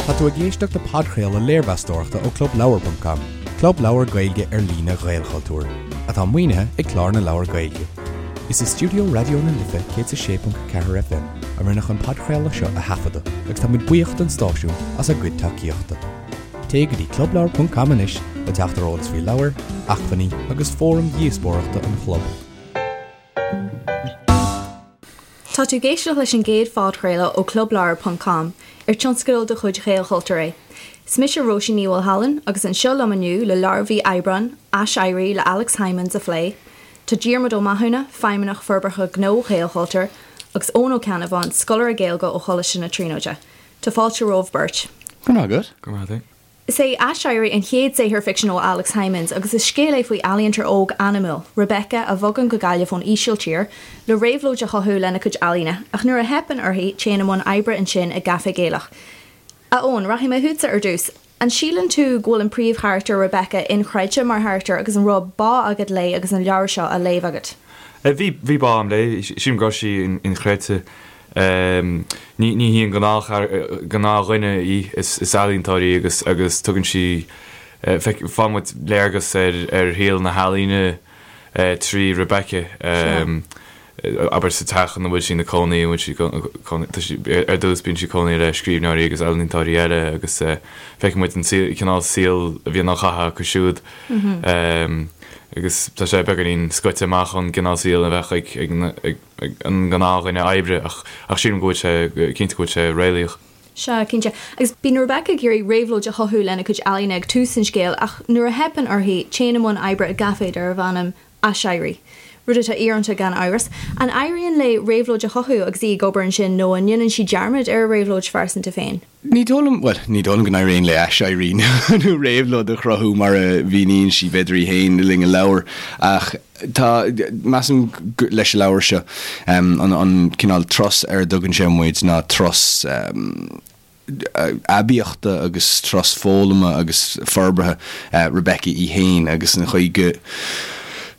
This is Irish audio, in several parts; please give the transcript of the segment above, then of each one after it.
Tá tú ag éisteacht le podchraoladh léirmheastóireachta ó ClubLeabhar.com, club leabhar Gaeilge ar líne Ghaelchultúir, atá maoinithe ag Clár na Leabhar Gaeilge. Is i stiúideo Raidió na Life 106.4 FM a rinneadh an podchraoladh seo a thaifeadadh agus tá muid buíoch don stáisiún as a gcuid tacaíochta. Téigh go dtí clubleabhar.com anois le teacht ar eolas faoi leabhair, acmhainní agus fóraim dhíospóireachta an chlub. Tá tú ag éisteacht leis an gcéad phodchraoladh ó Clubleabhar ponc com, ar tionscadal de chuid Ghaelchultúir é. Is mise Róisín Ní Mhaolshealain agus anseo liom inniu le leabhar mhí Aibreáin, Aiséirí le Alex Hijmans a phlé, tá Diarmuid Ó Mathúna, Feidhmeannach Forbartha Gnó Ghaelchultúir, agus Eoin Ó Ceannabháin, scoláire Gaeilge ó Choláiste na Tríonóide. Tá fáilte romhaibh beirt. Go raibh maith agat. Go raibh maith agat. Is é Aiséirí an chéad saothar ficsin ó Alex Hijmans agus is scéal é faoi ealaíontóir óg anamúil, Rebecca, a bhogann go Gaillimh ón Ísiltír le réabhlóid a chothú lena cuid ealaíne, ach nuair a theipeann uirthi, téann i mbun oibre ansin i gcaifé Gaelach. A Eoin, rachaidh mé chugatsa ar dtús. An síleann tú go bhfuil an príomhcharachtar, Rebecca, inchreidte mar charachtar agus an raibh bá agat léi agus an leabhar seo á léamh agat? Bhí, bhí bá agam léi. Sílim go raibh sí inchreidte. Ní ní hí an gnáthdhuine í, is ealaíontóir í agus agus tugann sí, faigheann muid léargas ar ar shaol na healaíne trí Rebecca, abair sa teach ina bhfuil sí ina cónaí, an bhfuil sí cónaí, tá sí, ar dtús bíonn sí ag cónaí le scríbhneoirí agus ealaíontóirí eile agus feiceann muid an cineál saoil a bhíonn á chaitheamh acu siúd agus tá sé beagáinín scoite amach ón gcineál saoil a bheadh ag ag an ngnáthdhuine oibre ach ach sílim go bhfuil sé, cinnte go bhfuil sé réalaíoch. Sea, cinnte. Agus bíonn Rebecca ag iarraidh réabhlóid a chothú lena cuid ealaíne ag tús an scéil ach nuair a theipeann uirthi, téann i mbun oibre i gcaifé darbh ainm Aiséirí. Rud atá íorónta gan amhras. An éiríonn léi réabhlóid a chothú agus í ag obair ansin nó an ndéanann sí dearmad ar a réabhlóid phearsanta féin? Ní dóigh liom, bhuel, ní dóigh liom go n-éiríonn léi aiséirí nó réabhlóid a chruthú mar a mhíníonn sí, b'fhéidir í féin le linn an leabhair, ach tá, measaim, leis an leabhar seo, an cineál turas ar a dtugann sé muid ná turas aibíochta agus turas foghlama agus forbartha Rebecca í féin agus an chaoi go.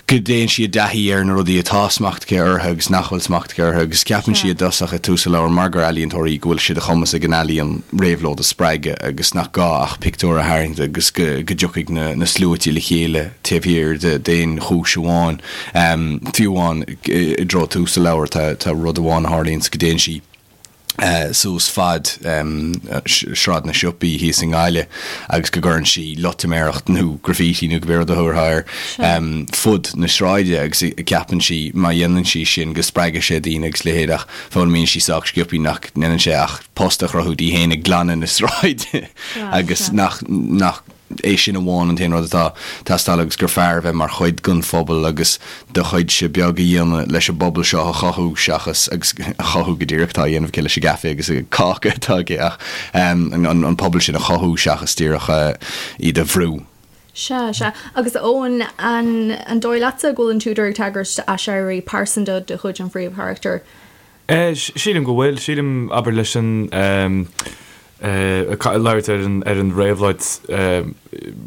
go dtéann sí i dtaithí ar na rudaí atá smacht aici orthu agus nach bhfuil smacht aici orthu agus ceapann sí i dtosach i dtús an leabhair mar gur ealaíontóir í go bhfuil sé de chumas ag an ealaíon réabhlóid a spreagadh agus nach gá ach pictiúr a tharraingt agus go go dtiocfaidh na na sluaite le chéile taobh thiar d'aon chúis amháin. Fiú amháin i dtreo tús an leabhair tá tá rud amháin a tharlaíonns go dtéann sí suas fad Sráid na Siopaí thíos i nGaillimh agus go gcuireann sí loitiméireacht nó graffiti nó cibé rud a thabharfá air fud na sráide agus ceapann sí má dhéanann sí sin go spreagfaidh sé daoine agus leithéid ach foghlaimíonn sí sách sciobtha nach ndéanann sé ach post a chruthú di féin ag glanadh na sráide agus nach nach é sin amháin an t-aon rud atá ag teastáil agus gur fearr a bheith mar chuid den phobal agus do chuidse beag a dhéanamh leis an bpobal seo a chothú seachas, agus a chothú go díreach atá á dhéanamh aici leis an gcaife agus an cáca atá aici ach an pobal sin a chothú seachas díreach iad a bhrú. Sea, sea. Agus Eoin, an dóigh leatsa go bhfuil an t-údar ag tagairt d'aiséirí pearsanta de chuid an phríomhcharachtair? Sílim go bhfuil. Sílim, abair, leis an, labhairt ar an, ar an réabhlóid,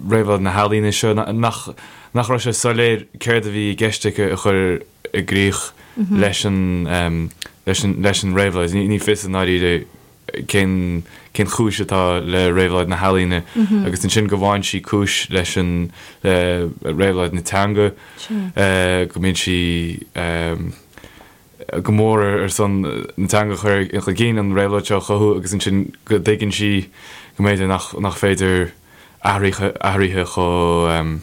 réabhlóid na healaíne seo, nach, nach raibh sé soiléir céard a bhí i gceist aici a chur i gcrích leis an, leis an, leis an réabhlóid. Ní fios i ndáiríre cén, cén chúis atá le réabhlóid na healaíne agus ansin go bhfaigheann sí cúis leis an, le réabhlóid na teanga, go mbíonn sí. go mór ar son na teanga a chur chun cinn, an réabhlóid seo a chothú agus ansin go dtuigeann sí go mb'fhéidir nach nach féidir athruithe athruithe chomh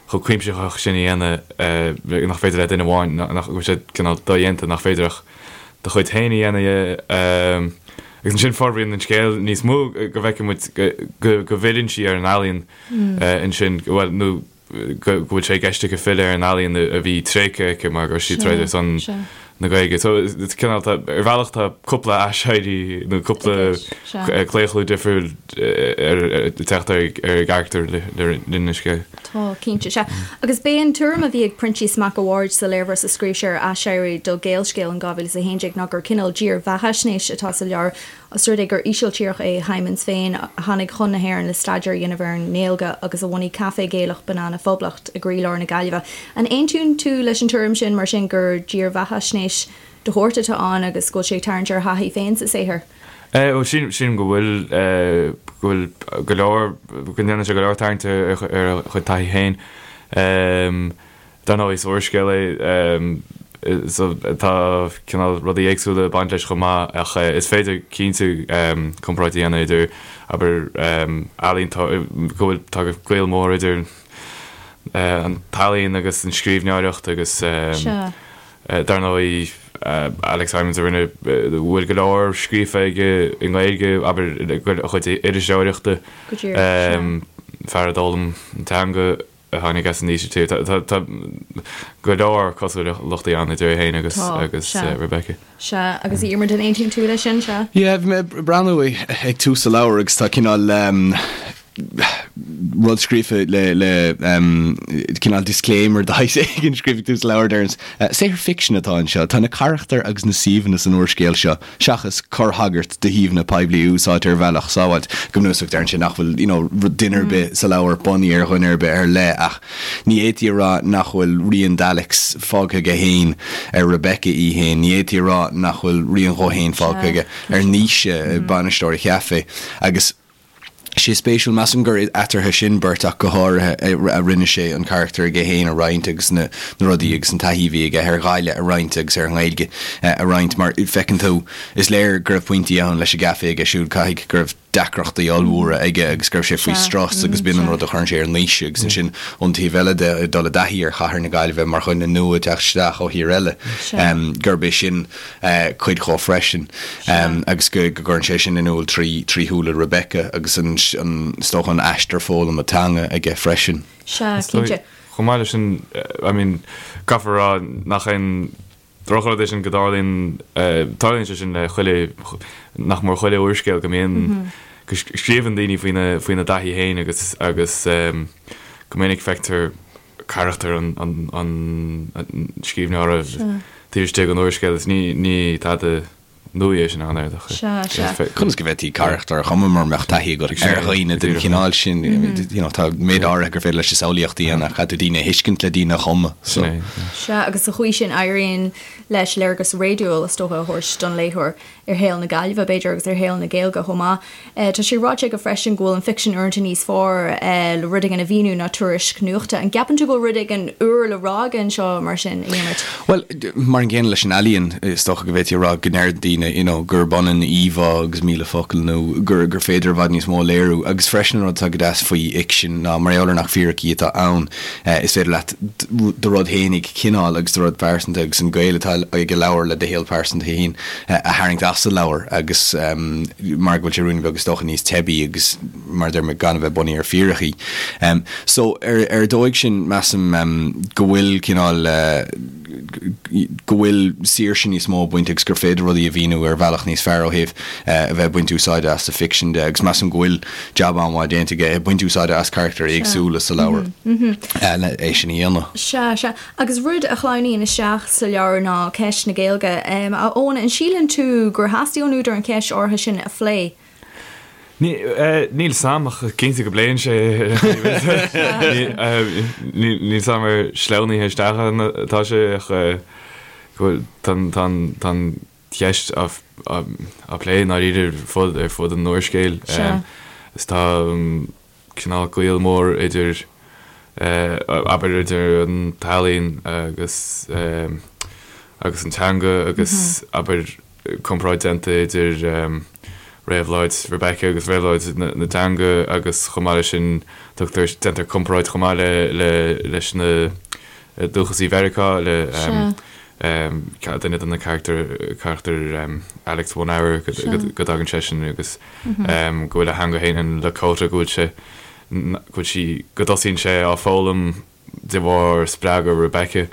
chomh cuimsitheach sin a dhéanamh, nach féidir le duine amháin, nach go bhfuil sé cineál dodhéanta, nach féidir ach do chuid féin a dhéanamh. Agus ansin forbraíonn an scéal níos mó go bhfeiceann muid go go bhfilleann sí ar an ealaíon ansin, bhuel nó go bhfuil sé i gceist aici filleadh ar an ealaíon a bhí tréigthe aici mar go raibh sí ag troid ar son na Gaeilge. So it's cineál tá ar bhealach tá cúpla aiséirí nó cúpla claochlú difriúil ag teacht ar an gcarachtar le linn an scéil. Tá, cinnte, sea. Agus b'é an tuairim a bhí ag Proinsias Mac a' Bhaird sa léirmheas a scríobh sé ar Aiséirí do Gaelscéal in 2011 ná gur cineál dírbheathaisnéis atá sa leabhar Os rud é gur Ísiltíreach é Hijmans féin, a tháinig chun na hÉireann le staidéar a dhéanamh ar an nGaeilge agus a bhunaigh caifé Gaelach Banana Phoblacht i gcroílár na Gaillimhe. An aontaíonn tú leis an tuairim sin, mar sin, gur dírbheathaisnéis de shórt atá ann agus go bhfuil sé ag tarraingt ar a thaithí féin sa saothar? Bhuel, sílim go bhfuil, go bhfuil go leor, go ndéanann sé go leor tarraingt ar a chuid taithí féin. Dar ndóigh, is úrscéal é so tá cineál rudaí éagsúla ag baint leis chomh maith ach is féidir cinnte comparáid a dhéanamh idir, abair, ealaín, go bhfuil, tá gaol mór idir an t-ealaín agus an scríbhneoireacht agus dar ndóigh Alex Hijmans a rinne, bhfuil go leor scríofa aige i nGaeilge, abair, a chuid iriseoireachta, fear a d'fhoghlaim an teanga. a tháinig as an Ísiltír. Tá go leor cosúlachtaí ann idir é féin agus agus Rebecca. Sea, agus a Dhiarmuid, an aontaíonn tú leis sin, sea? Yeah, bhí mé ag breathnú ag tús an leabhair agus tá cineál rud scríofa le le cineál disclaimer de shaghas éigin scríofa ag tús an leabhair deireann saothar ficsin atá anseo. Tá na carachtair agus na suíomhanna san úrscéal seo seachas corrthagairt do shuíomhanna poiblí a úsáidtear ar bhealach sábháilte. Go bunúsach, deireann sé nach bhfuil you know duine ar bith sa leabhar bunaithe ar dhuine ar bith ar leith ach ní fhéadfaí a rá nach bhfuil rian d'Alex fágtha aige féin ar Rebecca í féin, ní fhéadfaí a rá nach bhfuil rian dhó féin fágtha aige ar Naoise, bainisteoir an chaifé. Agus. sé spéisiúil, measaim gur eatarthu sin beirt ach go háirithe a rinne sé an carachtar aige féin a roinnt agus na rudaí agus an taithí a bhí aige ar Ghaillimh a roinnt agus ar an nGaeilge a roinnt mar feiceann tú, is léir go raibh pointí ann leis an gcaife aige siúd, caithfidh go raibh deacrachtaí ollmhóra aige agus go raibh sé faoi strus agus b'in an rud a chuireann sé ar Naoise agus ansin ón taobh eile de, ag dul i dtaithí ar chathair na Gaillimhe mar dhuine nua ag teacht isteach ó thír eile, gurb é sin cuid dhó freisin agus go gcuireann sé sin in iúl trí shúile Rebecca agus an, is dócha, an aistear foghlama teanga aige freisin. Sea, cinnte. Chomh maith leis sin, I mean, caithfear a rá nach aon drochrud é sin go dtarlaíonn, tarlaíonn sé sin le chuile, nach mór chuile úrscéal go mbíonn, go scríobhann daoine faoina, faoina dtaithí féin agus, agus go minic feictear carachtar an scríbhneora taobh istigh den úrscéal is ní tada nua é sin ann ar dócha. Sea, sea. Conas go bhféadfaí carachtar a chumadh mura mbeadh taithí agat ar dhaoine den chineál sin? You know, tá méid áirithe gur féidir leis an samhlaíocht a dhéanamh ach caithfidh tú daoine a thuiscint le daoine a chumadh. So. Sea, agus sa chaoi sin éiríonn leis léargas réadúil, is dócha, a thabhairt don léitheoir. ar shaol na Gaillimhe, b'fhéidir, agus ar shaol na Gaeilge chomh maith. Tá sé ráite aige freisin go bhfuil an ficsean uaireanta níos fearr le rud éigin a mhíniú ná tuairisc nuachta. An gceapann tú go bhfuil rud éigin úr le rá aige anseo mar sin, a Dhiarmuid? Bhuel, mar an gcéanna leis an ealaíon, is dócha go bhféadfaí a rá go ndeir daoine you know gurb ionann íomhá agus 1,000 focal nó gur gur féidir i bhfad níos mó a léiriú. Agus freisin an rud atá go deas faoi fhicsean ná mar gheall ar nach fíricí atá ann, is féidir leat do rud fhéinig cineál agus do rud pearsanta agus an gaol atá ag an leabhar le do shaol pearsanta féin a tharraingt as an leabhar agus mar go bhfuil sé ruainne beag is dócha níos teibí agus mar a deir mé gan a bheith bunaithe ar fíricí. So ar ar dóigh sin measaim go bhfuil cineál go bhfuil saoirse níos mó ag baint agus gur féidir rudaí a mhíniú ar bhealach níos fearr ó thaobh a bheith ag baint úsáide as sa ficsean de agus measaim go bhfuil jab an-mhaith déanta aige ag baint úsáide as carachtair éagsúla sa leabhar le é sin a dhéanamh. Sea, sea. Agus rud a shleamhnaíonn isteach sa leabhar ná ceist na Gaeilge. A Eoin, an síleann tú gur theastaigh ón údar an cheist áirithe sin a phlé? Níl 'fhios a'm ach cinnte go bpléann sé Níl 'fhios a'm ar sleamhnaithe isteach atá sé ach go bhfuil tá an cheist á plé i ndáiríre ar fud ar fud an úrscéil. Is tá cineál gaol mór idir abair idir an t-ealaín agus agus an teanga agus abair comparáid déanta idir réabhlóid Rebecca agus réabhlóid na teanga agus chomh maith leis sin tugtar, déantar comparáid chomh maith le, le, leis na dúchasaigh Mheiriceá, le duine de na carachtair, carachtar Alex One Hour go dtagann seisean agus go bhfuil a theanga féin, an Lakota, go bhfuil sé, go bhfuil sí, go dtosaíonn sé á foghlaim de bharr spreagadh Rebecca.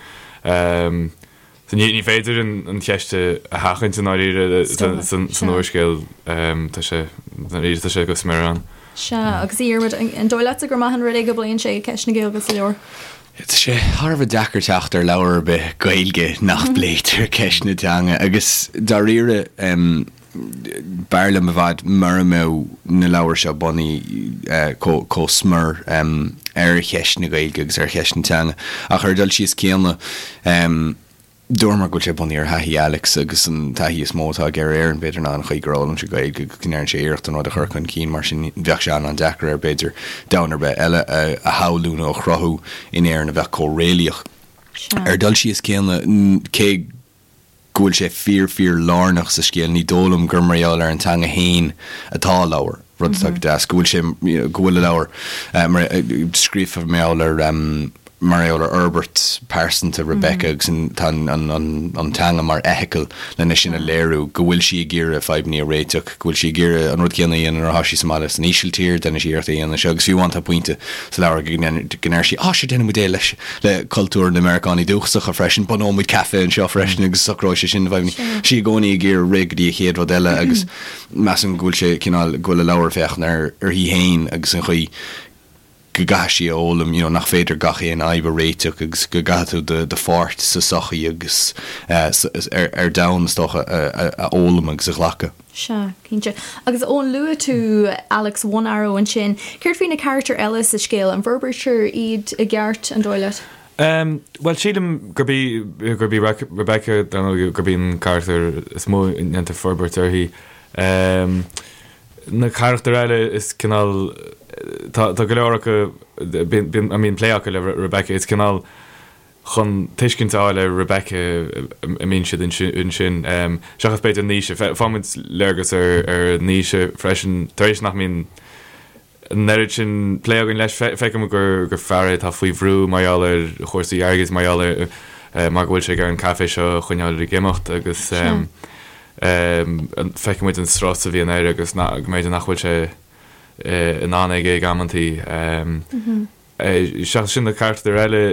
So ní féidir an cheist a sheachaint i ndáiríre san úrscéal, tá sé, ndáiríre tá sé go smior ann. Sea, agus a Dhiarmuid, an dóigh leatsa gur maith an rud é go bpléann sé ceist na Gaeilge sa leabhar? Tá sé thar a bheith deacair teacht ar leabhar ar bith Gaeilge nach bpléitear ceist na teanga agus dáiríre b'fhearr liom i bhfad mura mbeadh na leabhair seo bunaithe chomh smior ar cheist na Gaeilge agus ar cheist na teanga. Ach ar an dul síos céanna. Dúramar go bhfuil sé bunaithe ar thaithí Alex agus an taithí is mó atá aige ar Éirinn, b'fhéidir, ná an chaoi gur fhoghlaim sé Gaeilge agus go ndearna sé iarracht an rud a chur chun cinn, mar sin bheadh sé an-an-deacair air, b'fhéidir, domhan ar bith eile a shamhlú nó a chruthú in Éirinn a bheadh chomh réalaíoch. Ar dul síos céanna, cé go bhfuil sé fíor fíor lárnach sa scéal, ní dóigh liom gur mar gheall ar an teanga fhéin atá a leabhar, rud atá go deas, go bhfuil sé, go bhfuil a leabhar mar, scríofa mar gheall ar, mar gheall ar fhorbairt pearsanta Rebecca agus tá an teanga mar fheithicil lena sin a léiriú, go bhfuil sí ag iarraidh fadhbanna a réiteach, go bhfuil sí ag iarraidh an rud céanna a dhéanamh nuair atá sí sa mbaile san Ísiltír, déanann sí iarracht é a dhéanamh anseo agus fiú amháin tá pointe sa leabhar go ndeir sí, 'Á, sure déanfaidh muid é leis le cultúr na Meiriceánaigh dúchasacha freisin, bunóidh muid caife anseo freisin agus socróidh sé sin na fadhbanna. Tá sí i gcónaí ag iarraidh rith go dtí an chéad rud eile agus measaim go bhfuil sé cineál, go bhfuil a leabhar ag féachaint ar uirthi féin agus an chaoi go gcaithfidh sí a fhoghlaim you know nach féidir gach aon fhadhb a réiteach agus go gcaithfidh tú do do pháirt sa sochaí agus ar ar domhan is dócha a a fhoghlaim agus a ghlacadh. Sea, cinnte. Agus Eoin, luaigh tú Alex One Arrow ansin. Céard faoi na carachtair eile sa scéal? An bhforbraítear iad i gceart, an dóigh leat? Bhuel, sílim gurb í gurb í Rebecca, dar ndóigh, gurb í an carachtar is mó a ndéantar forbairt uirthi. Na carachtair eile is cineál, tá go leor acu, bíonn, a mbíonn plé acu le Rebecca, is cineál chun tuiscint a fháil ar Rebecca a mbíonn siad ansin, seachas b'fhéidir Naoise. Faighimid léargas ar Naoise freisin, tar éis nach mbíonn an oiread sin plé againn leis, feicimid gur fear é atá faoi bhrú mar gheall ar chúrsaí airgid, mar gheall ar, mar go bhfuil sé ag iarraidh an caifé seo a choinneáil ag imeacht agus feicimid an strus a bhíonn air agus go mb'fhéidir nach bhfuil sé in ann aige ag amantaí. Seachas sin na carachtair eile,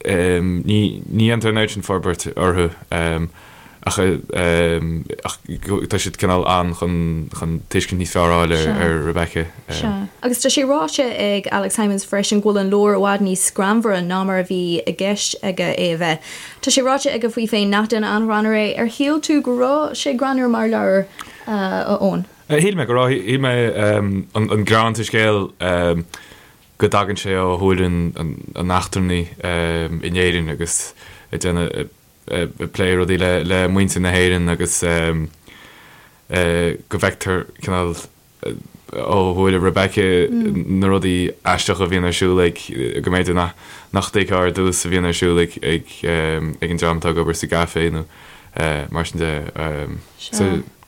ní dhéantar an oiread sin forbairt orthu ach ach tá siad cineál ann chun chun tuiscint níos fearr a fháil ar Rebecca. Sea. Agus tá sé ráite ag Alex Hijmans freisin go bhfuil an leabhar i bhfad níos greannmhaire ná mar a bhí i gceist aige é a bheith. Tá sé ráite aige faoi féin nach duine an-ghreannmhar é. Ar shíl tú go raibh sé greannmhar mar leabhar, a Eoin? Shíl mé go raibh. Shíl mé an greann sa scéal go dtagann sé ó shúile an eachtrannaigh in Éirinn agus ag déanamh, ag plé rudaí le muintir na hÉireann agus go bhfeictear cineál ó shúile Rebecca na rudaí aisteacha a bhíonn ar siúl ag, go mb'fhéidir nach dtuigfeá ar dtús a bhíonn ar siúl ag an dream atá ag obair sa gcaifé nó mar sin de.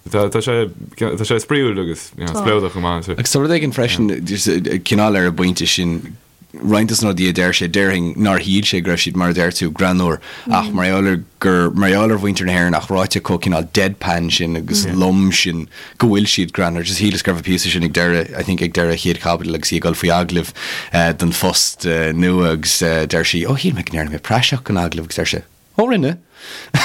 Tá sé tá sé spraíúil agus spleodrach chomh maith. Agus tá rud éigin freisin, cineál ar an bpointe sin, roinnt de na rudaí a deir sé, déarfainn nár shíl sé go raibh siad, mar a deir tú, greannmhar, ach mar gheall ar gur, mar gheall ar mhuintir na hÉireann ach ráite chomh cineál deadpan sin agus lom sin go bhfuil siad greannmhar. Just shíleas go raibh an píosa sin ag deireadh, I think ag deireadh an chéad chaibidil agus í ag dul faoi agallamh don phost nua agus deir sí, oh shíl mé go ndearna mé praiseach den agallamh agus deir sé, Ó rinne!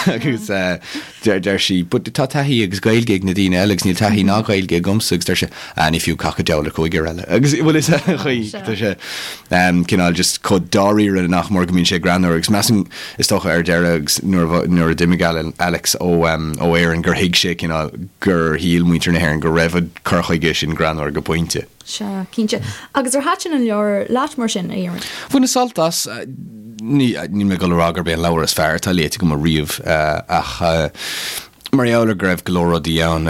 Agus deir sí, But tá taithí agus Gaeilge ag na daoine eile agus níl taithí ná Gaeilge agamsa agus deir sé, Ah ní fiú cac an diabhal ar chúigear eile. Agus bhfuil fhios agat an chaoi, tá sé cineál just chomh dáiríre nach mór go mbíonn sé greannmhar agus measaim is dócha ar deireadh agus nuair nuair a d'imigh Alex ó ó Éirinn gur thuig sé cineál gur shíl muintir na hÉireann go raibh an cur chuige sin greannmhar go pointe. Sea, cinnte. Agus ar thaitin an leabhar leat mar sin, a Dhiarmuid? Bhaineas sult as. Ní, níl mé ag dul a rá gurb é an leabhar is fearr atá léite agam ariamh, ach mar gheall ar go raibh go leor rudaí ann,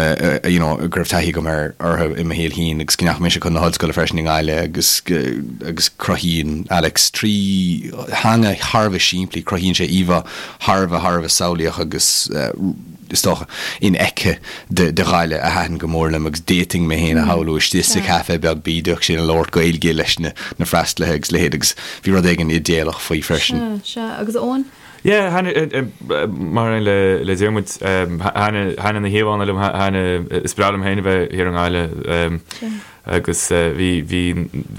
you know, go raibh taithí agam ar, orthu i mo shaol féin agus go ndeachaigh mise chun na hollscoile freisin i nGaillimh agus, agus cruthaíonn Alex trí theanga thar a bheith simplí, cruthaíonn sé íomhá thar a bheith, thar a bheith samhlaíoch agus, is dócha, infheicthe de Ghaillimh a thaitin go mór liom agus d'fhéadfainn mé féin a shamhlú istigh sa chaife beag bídeach sin ag labhairt Gaeilge leis na freastalaithe agus a leithéid agus bhí rud éigin idéalach faoi freisin. Sea, sea. Agus Eoin? Yeah, thaitin, mar aon le Diarmuid, thaitin na híomhánna liom, thaitin, is breá liom féin a bheith thiar i nGaillimh agus bhí, bhí,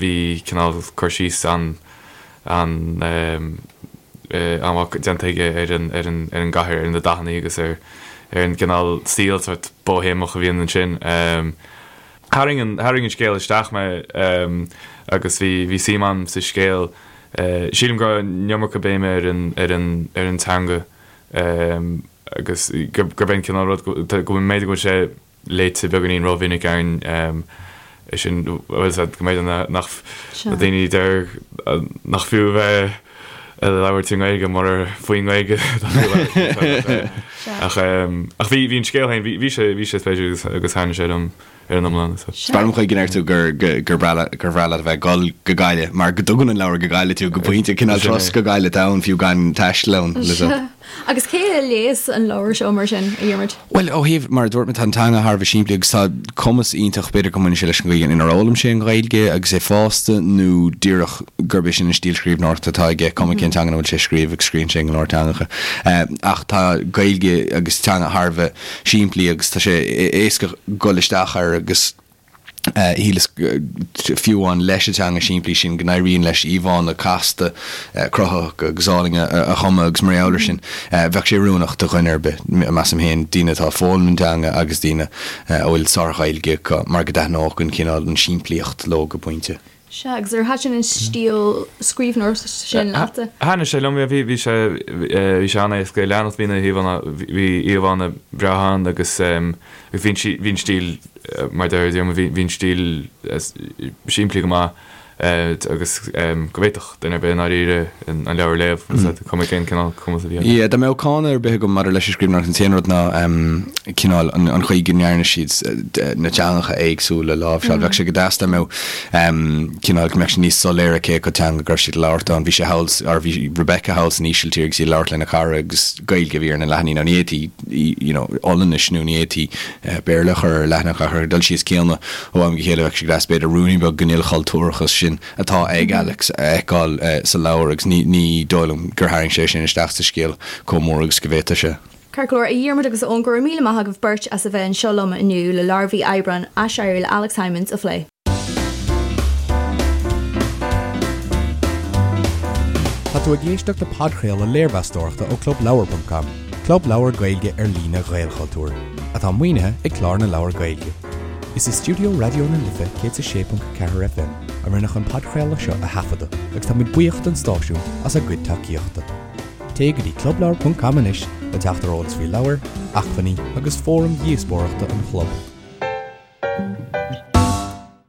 bhí cineál cur síos an, an, an-mhaith déanta aige ar an, ar an, ar an gcathair, ar na dathanna agus ar, ar an gcineál saol sórt bóihéamach a bhíonn ansin. Tharraing an, tharraing an scéal isteach mé agus bhí, bhí suim agam sa scéal. Sílim go raibh an iomarca béime ar an, ar an, ar an teanga agus gurb é an cineál rud go, go mb'fhéidir go bhfuil sé léite beagáinín rómhinic againn é sin, bhfuil fhios agat, go mb'fhéidir nach na daoine a deir nach fiú a bheith. Labhairt i nGaeilge murar faoin nGaeilge atá tú ag labhairt. Ach ach bhí bhí an scéal féin, bhí sé bhí sé spéisiúil agus agus thaitnigh sé liom ar an iomlán. Is breá liom an chaoi go ndeir tú gur gur breá leat gur bhreá leat a bheith ag dul go Gaillimh mar go dtugann an leabhar go Gaillimh tú go pointe, cineál turas go Gaillimh atá ann fiú gan taisteal ann. Agus cé a léas an leabhar seo mar sin, a Dhiarmuid? Bhuel, ó thaobh, mar a dúirt mé, tá an teanga thar a bheith simplí agus tá cumas iontach, b'fhéidir go mbaineann sé leis an gcaoi inar fhoghlaim sé an Ghaeilge agus é fásta nó díreach gurb é sin an stíl scríbhneoireachta atá aige, cuma cén teanga ina bhfuil sé ag scríobh agus scríobhann sé in go leor teangacha. Ach tá Gaeilge agus teanga thar a bheith simplí agus tá sé éasca dul isteach air agus. Shíleas, fiú amháin leis an teanga simplí sin, go n-éiríonn leis íomhánna casta, cruthaitheacha agus álainn a chumadh agus mar gheall air sin, bheadh sé oiriúnach do dhuine ar bith, measaim féin, daoine atá ag foghlaim an teanga agus daoine a bhfuil sár-Ghaeilge acu, mar go dtaitneodh an cineál, an simplíocht leo go pointe. Sea, agus ar thaitin an stíl scríbhneoireachta sin leatsa? Thaitnigh sé liom, bhí, bhí sé, bhí sé an-éasca a leanacht, bhí na híomhánna, bhí íomhánna breátha ann agus agus bhí an, bhí an stíl, mar a deir Diarmuid, bhí, bhí an stíl simplí go maith agus go bhféadfadh duine ar bith i ndáiríre an leabhar a léamh, is cuma cén cineál cumas a bhí acu. Yeah, dá mbeadh cáineadh ar bith agam maidir leis an scríbhneoireacht, an t-aon rud ná cineál an chaoi go ndearna siad na teangacha éagsúla a láimhseáil. Bheadh sé go deas dá mbeadh cineál go mbeadh sé níos soiléire cé acu teanga go raibh siad ag labhairt ann. Bhí sé thall, or bhí Rebecca thall san Ísiltír agus í ag labhairt lena cara agus Gaeilge a bhí ar na leathanaigh. Now ní fhéadfaí you know Ollainnis nó ní fhéadfaí Béarla a chur ar leathanach ach ar an dul síos céanna ó am go chéile bheadh sé go deas b'fhéidir ruainnín beag den ilchultúrachas sin atá ag Alex a fheiceáil sa leabhar agus ní ní dóigh liom gur tharraing sé sin isteach sa scéal chomh mór agus go bhféadfadh sé. Ceart go leor, a Dhiarmuid agus a Eoin, go raibh míle maith agaibh beirt as a bheith anseo liom inniu le leabhar mhí Aibreáin, Aiséirí le Alex Hijmans a phlé. Tá tú ag éisteacht le podchraoladh léirmheastóireachta ó Clubleabhar ponc com, club leabhar Gaeilge ar líne Ghaelchultúir, atá maoinithe ag Clár na Leabhar Gaeilge. Is i stiúideo Raidió na Life 106.4 FM a rinneadh an podchraoladh seo a thaifeadadh agus táimid buíoch don stáisiún as a gcuid tacaíochta. Téigh go dtí clubleabhar.com anois le teacht ar eolas faoi leabhair, acmhainní agus fóraim dhíospóireachta an chlub.